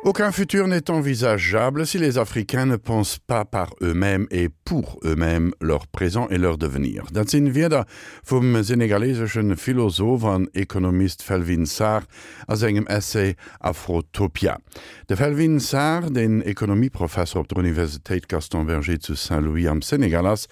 Aucun futur n'est envisageable si les Africains ne pensent pas par eux-mêmes et pour eux-mêmes leur présent et leur devenir. Dat sinn Wierder vum senegalesesche Philosoph an Ekonomist Felwine Sarr a sengem Essay Afrotopia. De Felwine Sarr, deen Ekonomieprofesser op der Universitéit Gaston Berger zu Saint-Louis am Senegal ass,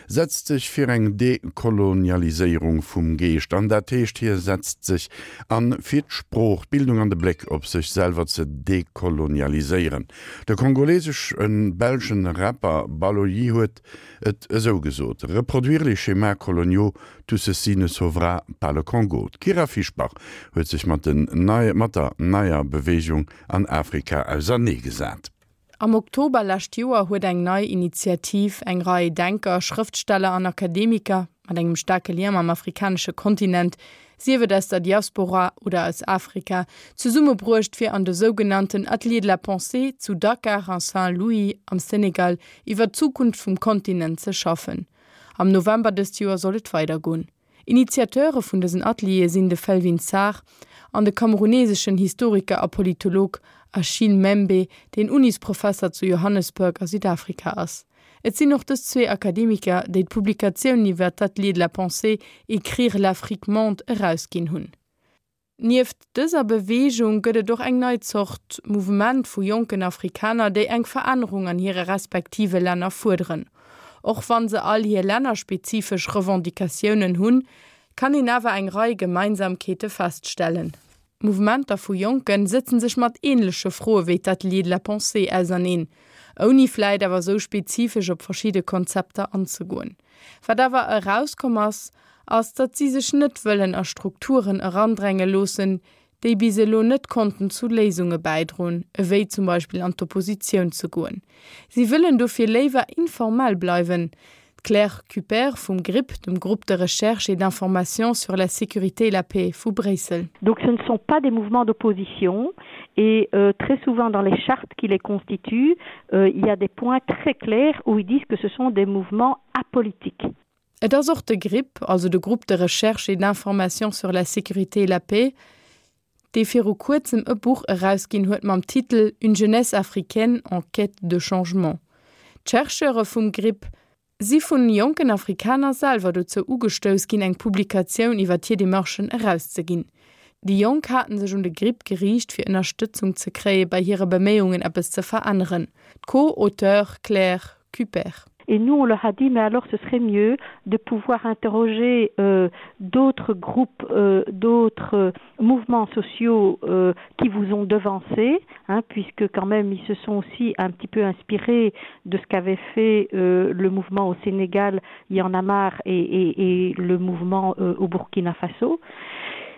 setzt sech fir eng Dekolonialiséierung vum Geescht an. Dat heescht, hie setzt sech an, fir d'Sprooch, d'Bildung an de Bléck op sech selwer ze dekolonialiséieren. De kongolesesch-belschen Rapper Baloyi huet et esou gesot, Reproduire les schémas coloniaux, tout ceci ne sauvera pas le Congo. D'Kyra Fischbach huet sech mat der neier Beweegung an Afrika auserneegesat. Am Oktober lescht Joer huet eng nei Initiativ eng Rei Denker, Schrëftsteller an Akademiker mat engem staarke Lien mam afrikanesche Kontinent, sief et aus der Diaspora oder aus Afrika, zesummebruecht fir an de sougenannten Ateliers de la Pensée zu Dakar a Saint-Louis am Senegal iwwer d'Zukunft vum Kontinent ze schaffen. Am November dëst Joer soll et weidergoen. Initiateure vun dësen Ateliere sinn de Felwine Sarr an de kameruneseschen Historiker a Politolog Achille Mbembe, deen Unisprofesser zu Johannesburg a Südafrika ass. Et sinn och dës zwee Akademiker, déi d'Publikatioun iwwer d'Ateliers de la pensée, Écrire l'Afrique-monde erausginn hunn. Nieft dëser Beweegung gëtt et och eng nei Zort Mouvement vu jonken Afrikaner, déi eng Verännerung an hire respektive Länner fuerderen. Och wann se all hir lännerspezifesch Revendicatiounen hunn, kann een awer eng Rei Gemeinsamkeete feststellen. Mouvementer vu Jonken sëtzen sech mat änleche Froe wéi d'Ateliers de la pensée auserneen, ouni vläit awer sou spezifesch op verschidde Konzepter anzegoen. Wat awer erauskomm ass, ass, datt si sech net wëllen a Strukturen erandränge loossen, déi bis elo net konnten zu Léisunge bäidroen, ewéi zum Beispill an d'Oppositioun ze goen. Si wëllen dofir léiwer informell bleiwen. D'Claire Cuper vum GRIP, dem Groupe de recherche et d'information sur la sécurité et la paix vu Bréissel. Donc ce ne sont pas des mouvements d'opposition et euh, très souvent dans les chartes qui les constituent, euh, il y a des points très clairs où ils disent que ce sont des mouvements apolitiques. Et ass och de GRIP, also de Groupe de recherche et d'information sur la sécurité et la paix, dee viru kuerzem e Buch erausginn huet mam Titel Une jeunesse africaine en quête de changement. D'Chercheure vum GRIP si vun jonken Afrikaner selwer dozou ugestouss ginn, eng Publikatioun iwwer hir Demarchen erauszeginn. Déi Jonk haten sech un de GRIP geriicht fir Ënnerstëtzung ze kréie bei hire Beméiungen eppes ze veränneren. D'Co-Auteure Claire Cuper. Et nous, on leur a dit mais alors ce serait mieux de pouvoir interroger euh, d'autres groupes, euh, d'autres euh, mouvements sociaux euh, qui vous ont devancé, hein, puisque quand même ils se sont aussi un petit peu inspirés de ce qu'avait fait euh, le mouvement au Sénégal, Yanamar et, et, et le mouvement euh, au Burkina Faso.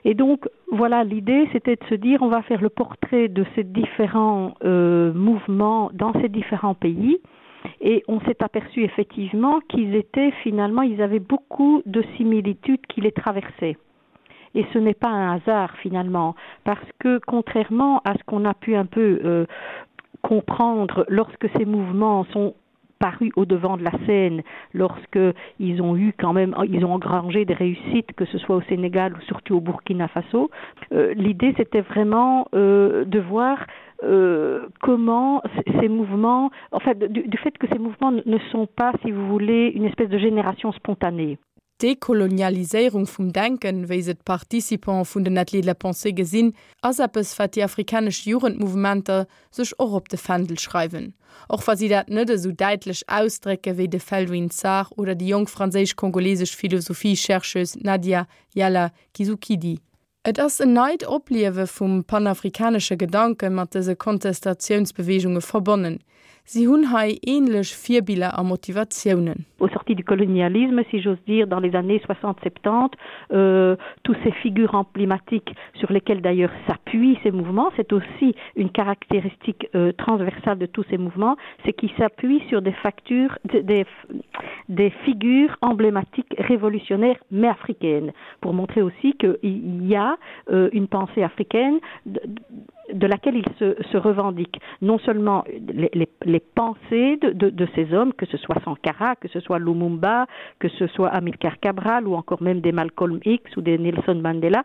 Et donc voilà l'idée c'était de se dire on va faire le portrait de ces différents euh, mouvements dans ces différents pays et on s'est aperçu effectivement qu'ils étaient finalement ils avaient beaucoup de similitudes qui les traversaient. Et ce n'est pas un hasard finalement parce que contrairement à ce qu'on a pu un peu euh, comprendre lorsque ces mouvements sont paru au devant de la scène lorsque ils ont eu quand même ils ont engrangé des réussites que ce soit au Sénégal ou surtout au Burkina Faso euh, l'idée c'était vraiment euh, de voir euh, comment ces mouvements enfin du, du fait que ces mouvements ne sont pas si vous voulez une espèce de génération spontanée. D'Dekolonialiséierung vum Denken, wéi se d'Participants vun den Ateliers de la pensée gesinn, ass eppes, wat déi afrikanesch Jugendmouvementer sech och op de Fändel schreiwen, och wa si dat net esou däitlech ausdrécke wéi de Felwine Sarr oder déi jonk franséisch-kongolesesch Philosophie-Chercheuse Nadia Yala Kizukidi. Et ass en neit Opliewe vum panafrikanesche Gedanke mat dëse Kontestatiounsbeweegunge verbonnen. Si hunn hei ähnlech Virbiller a Motivatiounen. Au sorti du colonialisme, si j'ose dire, dans les années 60-70, euh, tous ces figures emblématiques sur lesquelles d'ailleurs s'appuient ces mouvements, c'est aussi une caractéristique euh, transversale de tous ces mouvements, c'est qu'ils s'appuient sur des factures, des, des figures emblématiques révolutionnaires mais africaines, pour montrer aussi qu'il y a euh, une pensée africaine de, de laquelle il se, se revendique non seulement les, les, les pensées de, de, de ces hommes, que ce soit Sankara, que ce soit Lumumba, que ce soit Amilcar Cabral ou encore même des Malcolm X ou des Nelson Mandela,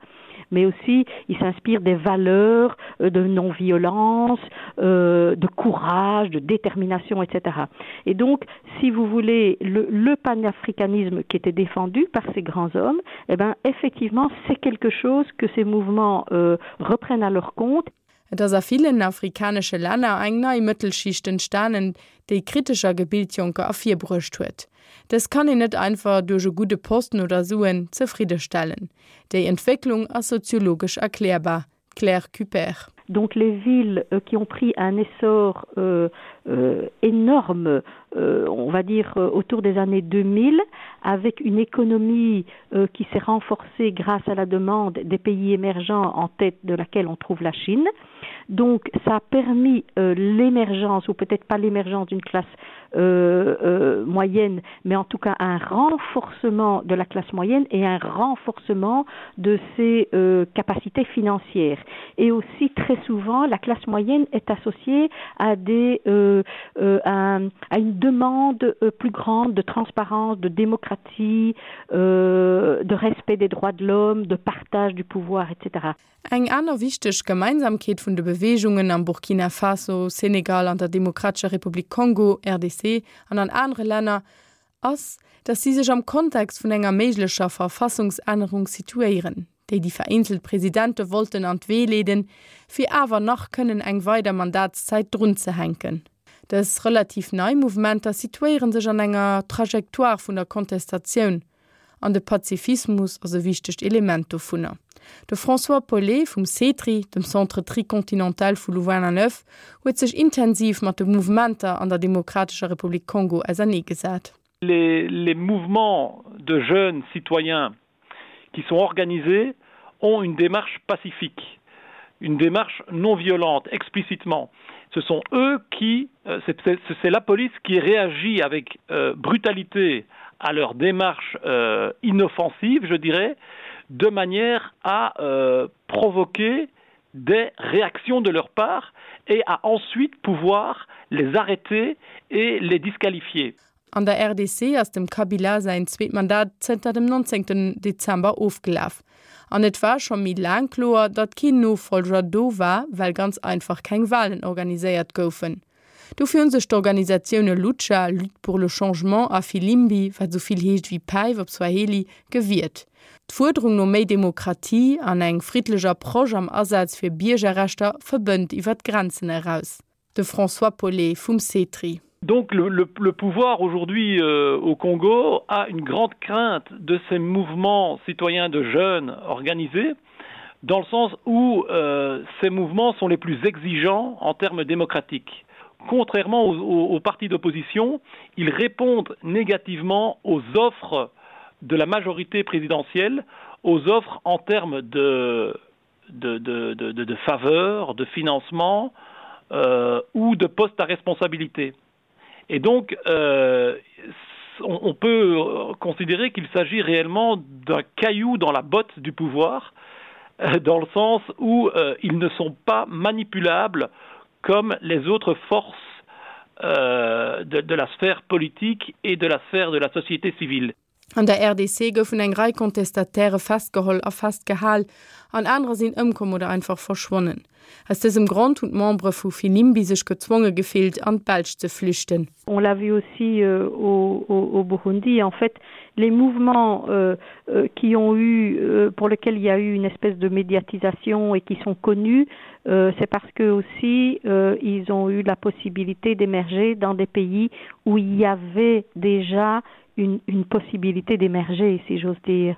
mais aussi il s'inspire des valeurs euh, de non-violence, euh, de courage, de détermination, etc. Et donc, si vous voulez, le, le panafricanisme qui était défendu par ces grands hommes, eh ben, effectivement, c'est quelque chose que ces mouvements euh, reprennent à leur compte. Et ass a villen afrikanesche Länner eng nei Mëttelschicht entstanen, déi kritesch a gebilt Jonker ervirbruecht huet. Dës kann een net einfach duerch e gudde Posten oder Suen zefriddestellen. Déi Entwécklung ass soziologesch erklärbar, d'Claire Cuper. Donc les villes euh, qui ont pris un essor euh, euh, énorme, euh, on va dire euh, autour des années 2000, avec une économie euh, qui s'est renforcée grâce à la demande des pays émergents en tête de laquelle on trouve la Chine. Donc ça a permis euh, l'émergence ou peut-être pas l'émergence d'une classe euh, euh, moyenne, mais en tout cas un renforcement de la classe moyenne et un renforcement de ses euh, capacités financières. Et aussi très souvent, la classe moyenne est associée à, des, euh, euh, à, à une demande euh, plus grande de transparence, de démocratie, euh, de respect des droits de l'homme, de partage du pouvoir, etc. Eng aner wichteg Gemeinsamkeet vun de Beweegungen am Burkina Faso, Senegal, an der Demokratescher Republik Kongo, RDC, an an anere Länner ass, datt si sech am Kontext vun enger méiglecher Verfassungsännerung situéieren, déi déi vereenzelt Presidente wollten an d'Wee leeden, fir awer nach kënnen eng weider Mandatszäit drunzehänken. Dës relativ nei Mouvementer situéiere sech an enger Trajectoire vun der Kontestatioun, An de Pazifismus ass e wichtegt Element dovunner. De François Paulet vum CETRI, dem Centre Tricontinental vu Louvain-la-Neuve, huet sech intensiv mat de Mouvementer an der Demokratescher Republik Kongo auserneegesat. Les, les mouvements de jeunes citoyens qui sont organisés ont une démarche pacifique, une démarche non violente explicitement. Ce sont eux qui euh, c'est la police qui réagit avec euh, brutalité à leur démarche euh, inoffensive, je dirais, de manière à euh, provoquer des réactions de leur part et à ensuite pouvoir les arrêter et les disqualifier. An der RDC ass dem Kabila säin zweet Mandat zënter dem 19 Dezember ofgelaf. An et war scho méi laang kloer, datt keen Nofollger do war, well ganz einfach keng Walen organiséiert goufen. Dofir hu sech d'Organisatioune Lucha, Lutte pour le changement, a Filimbi, wat esou vill heescht ewéi Päif op Swahili, gewiert. D'Fuerderung no méi Demokratie an eng friddlech Approche am Asaz fir Biergerrechter verbënnt iwwer d'Grenzen eraus. De François Paulet vum CETRI. Donc le, le, le pouvoir aujourd'hui euh, au Congo a une grande crainte de ces mouvements citoyens de jeunes organisés, dans le sens où euh, ces mouvements sont les plus exigeants en termes démocratiques. Contrairement aux, aux, aux partis d'opposition, ils répondent négativement aux offres de la majorité présidentielle, aux offres en termes de, de, de, de, de, de faveurs, de financement euh, ou de postes à responsabilité. Et donc euh, on, on peut considérer qu'il s'agit réellement d'un caillou dans la botte du pouvoir, euh, dans le sens où euh, ils ne sont pas manipulables comme les autres forces euh, de, de la sphère politique et de la sphère de la société civile. An der RDC goufen eng Rei Contestataire festgeholl a festgehal, an anerer sinn ëmkomm oder einfach verschwonnen. Aus dësem Grond hunn d'Membere vu Filimbi sech gezwonge gefillt, an d'Belsch ze flüchten. On l'a vu aussi euh, au, au, au Burundi. En fait, les mouvements euh, euh, qui ont eu, euh, pour lesquels il y a eu une espèce de médiatisation et qui sont connus, euh, c'est parce que aussi euh, ils ont eu la possibilité d'émerger dans des pays où il y avait déjà une, une possibilité d'émerger, si j'ose dire.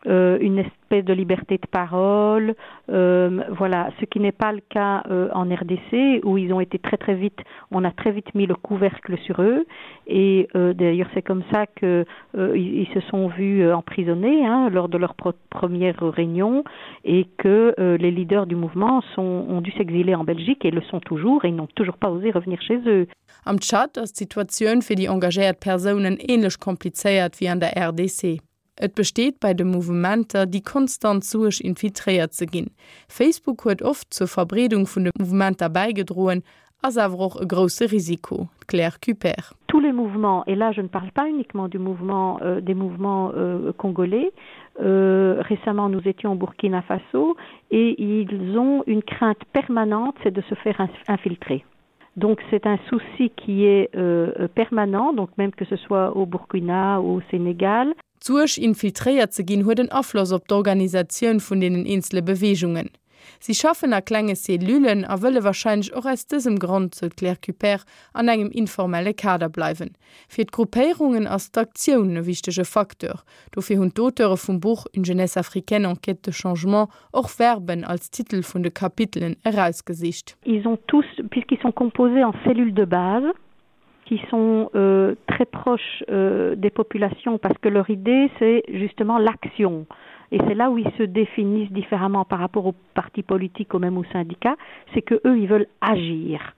Euh, une espèce de liberté de parole euh, voilà ce qui n'est pas le cas euh, en RDC où ils ont été très très vite on a très vite mis le couvercle sur eux et euh, d'ailleurs c'est comme ça que euh, ils, ils se sont vus euh, emprisonnés hein, lors de leur première réunion et que euh, les leaders du mouvement sont ont dû s'exiler en Belgique et le sont toujours et n'ont toujours pas osé revenir chez eux. Am Tschad ass d'Situatioun fir déi engagéiert Persounen änlech komplizéiert wéi an der RDC. Et besteet bei de Mouvementer déi konstant Suerg infiltréiert ze ginn. Facebook huet oft zur Verbreedung vun de Mouvementer bäigedroen, ass awer och e grousse Risiko. D'Claire Cuper. Tous les mouvements, et là je ne parle pas uniquement du mouvement, euh, des mouvements euh, congolais, Euh, récemment, nous étions au Burkina Faso et ils ont une crainte permanente, c'est de se faire infiltrer. Donc c'est un souci qui est euh, permanent, donc même que ce soit au Burkina ou au Sénégal. D'Suerg, infiltréiert ze ginn, huet en Afloss op d'Organisatioun vun deenen eenzele Beweegungen. Si schaffen a klenge Cellullen a wëlle warscheinlech och aus dësem Grond, sou d'Claire Cuper, an engem informelle Kader bleiwen. Fir d'Gruppéierungen ass d'Aktioun e wichtege Facteur. Dofir hunn d'Auteure vum Buch Une jeunesse africaine en quête de changement och Verben als Titel vun de Kapitelen erausgesicht. Ils ont tous, puisqu'ils sont composés en cellules de base, qui sont euh, très proches euh, des populations parce que leur idée c'est justement l'action et c'est là où ils se définissent différemment par rapport aux partis politiques ou même aux syndicats c'est que eux ils veulent agir.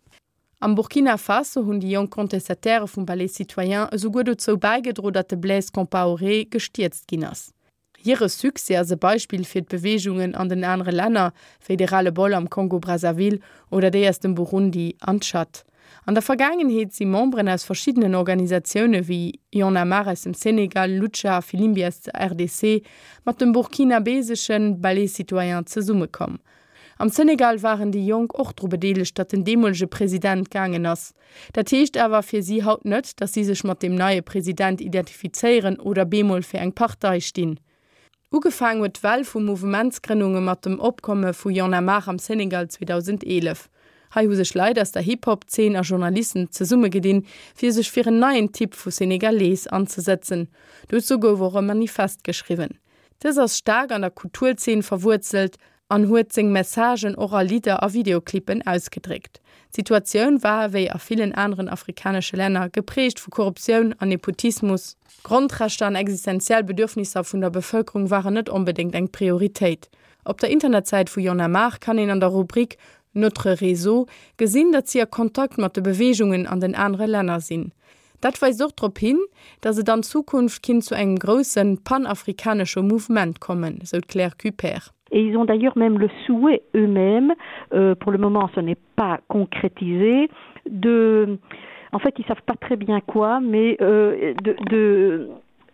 Am Burkina Faso hunn déi jonk Contestataire vum Balai Citoyen esouguer dozou bäigedro, datt de Blaise Compaoré gestierzt ginn ass. Hire Succès ass e Beispill fir d'Beweegungen an den anere Länner, wéi de Ras-le-bol am Kongo-Brazzaville oder déi aus dem Burundi an Tschad. An der Vergaangenheet si Memberen aus verschiddenen Organisatioune wéi Y'en a marre aus dem Senegal, Lucha a Filimbi aus der RDC mat dem burkinabesesche Balai Citoyen zesummekomm. Am Senegal waren déi Jonk och dru bedeelegt, datt den deemolege President gaangen ass. Dat heescht awer fir si haut net, datt si sech mat deem neie President identifizéieren oder bemol fir eng Partei stinn. Ugefaang huet d'Well vu Mouvementsgrënnunge mat dem Opkomme vu Y'en a marre am Senegal 2011. Hei hu sech Leit aus der Hip-Hop-Zeen a Journalisten zesummegedinn, fir sech fir en neien Typ vu Senegalese anzesetzen. Dozou gouf och e Manifest geschriwwen. Dës ass staark an der Kulturzeen verwuerzelt an huet seng Messagen och a Lidder a Videoclippen ausgedréckt. D'Situatioun war, wéi a villen aneren afrikanesche Länner, geprägt vu Korruptioun an Nepotismus. Grondrechter an existenziell Bedürfnisser vun der Bevëlkerung waren net onbedéngt eng Prioritéit. Op der Internetsäit vu Y'en a marre kann een an der Rubrik Notre réseau gesinn, datt si a Kontakt mat de Beweegungen an den anere Länner sinn. Dat weist och drop hin, datt et an Zukunft kinnt zu engem grousse panafrikanesche Mouvement kommen, sou d'Claire Cuper. Et ils ont d'ailleurs même le souhait eux-mêmes, euh, pour le moment ce n'est pas concrétisé, de en fait ils savent pas très bien quoi, mais euh, de, de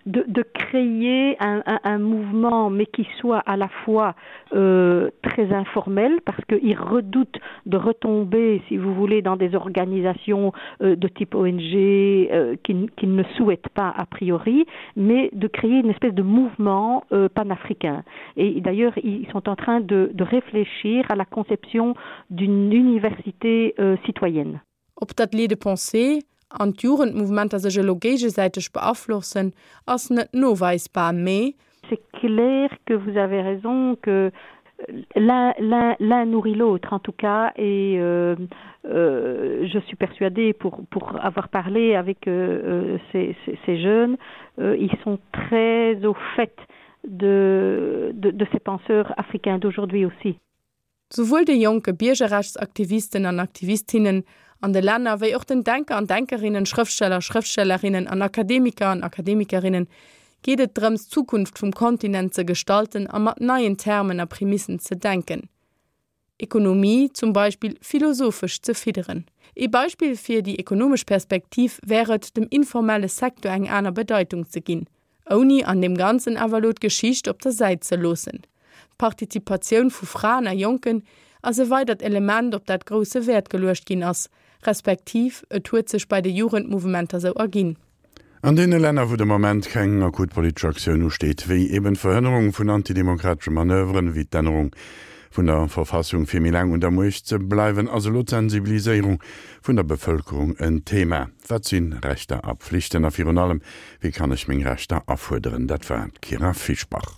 de, de créer un, un, un mouvement mais qui soit à la fois euh, très informel parce qu'ils redoutent de retomber si vous voulez dans des organisations euh, de type ONG euh, qu'ils qui ne souhaitent pas a priori mais de créer une espèce de mouvement euh, panafricain et d'ailleurs ils sont en train de, de réfléchir à la conception d'une université euh, citoyenne. Ob d'Ateliers de pensée an d'Jugendmouvementer sech elo géigesäiteg beaflossen, ass net noweisbar, mee. C'est clair que vous avez raison que l'un l'un l'un nourrit l'autre en tout cas et euh, euh, je suis persuadée pour pour avoir parlé avec euh, euh ces, ces, ces jeunes euh, ils sont très au fait de, de, de ces penseurs africains d'aujourd'hui aussi. Souwuel de jonke Biergerrechtsaktivisten an Aktivistinnen an de Länner, wéi och den Denker an Denkerinnen, Schrëftsteller, Schrëftstellerinnen an Akademiker an Akademikerinnen geet et drëms, d'Zukunft vum Kontinent ze gestalten a mat neien Termen a Premissen ze denken, Ekonomie zum Beispill philosophesch ze fidderen. Ee Beispill fir déi ekonomesch Perspektiv wär et, dem informelle Secteur eng aner Bedeitung ze ginn. Ouni an deem Ganzen awer elo d'Geschicht op der Säit ze loossen. D'Partizipatioun vu Fraen a Jonken ass e weidert Element, op dat grousse Wäert geluecht ginn ass, respektiv et huet sech bei de Jugendmouvementer sou erginn. An deene Länner, wou de Moment keng akut politesch Aktioun usteet, wéi eben d'Verhënnerung vun antidemokratesche Manöveren, wéi d'Ännerung vun der Verfassung fir méi laang un der Muecht ze bleiwen, ass elo d'Sensibiliséierung vun der Bevëlkerung en Thema. Wat si Rechter a Pflichten a virun allem, wéi kann ech meng Rechter afuerderen? Dat war d'Kyra Fischbach.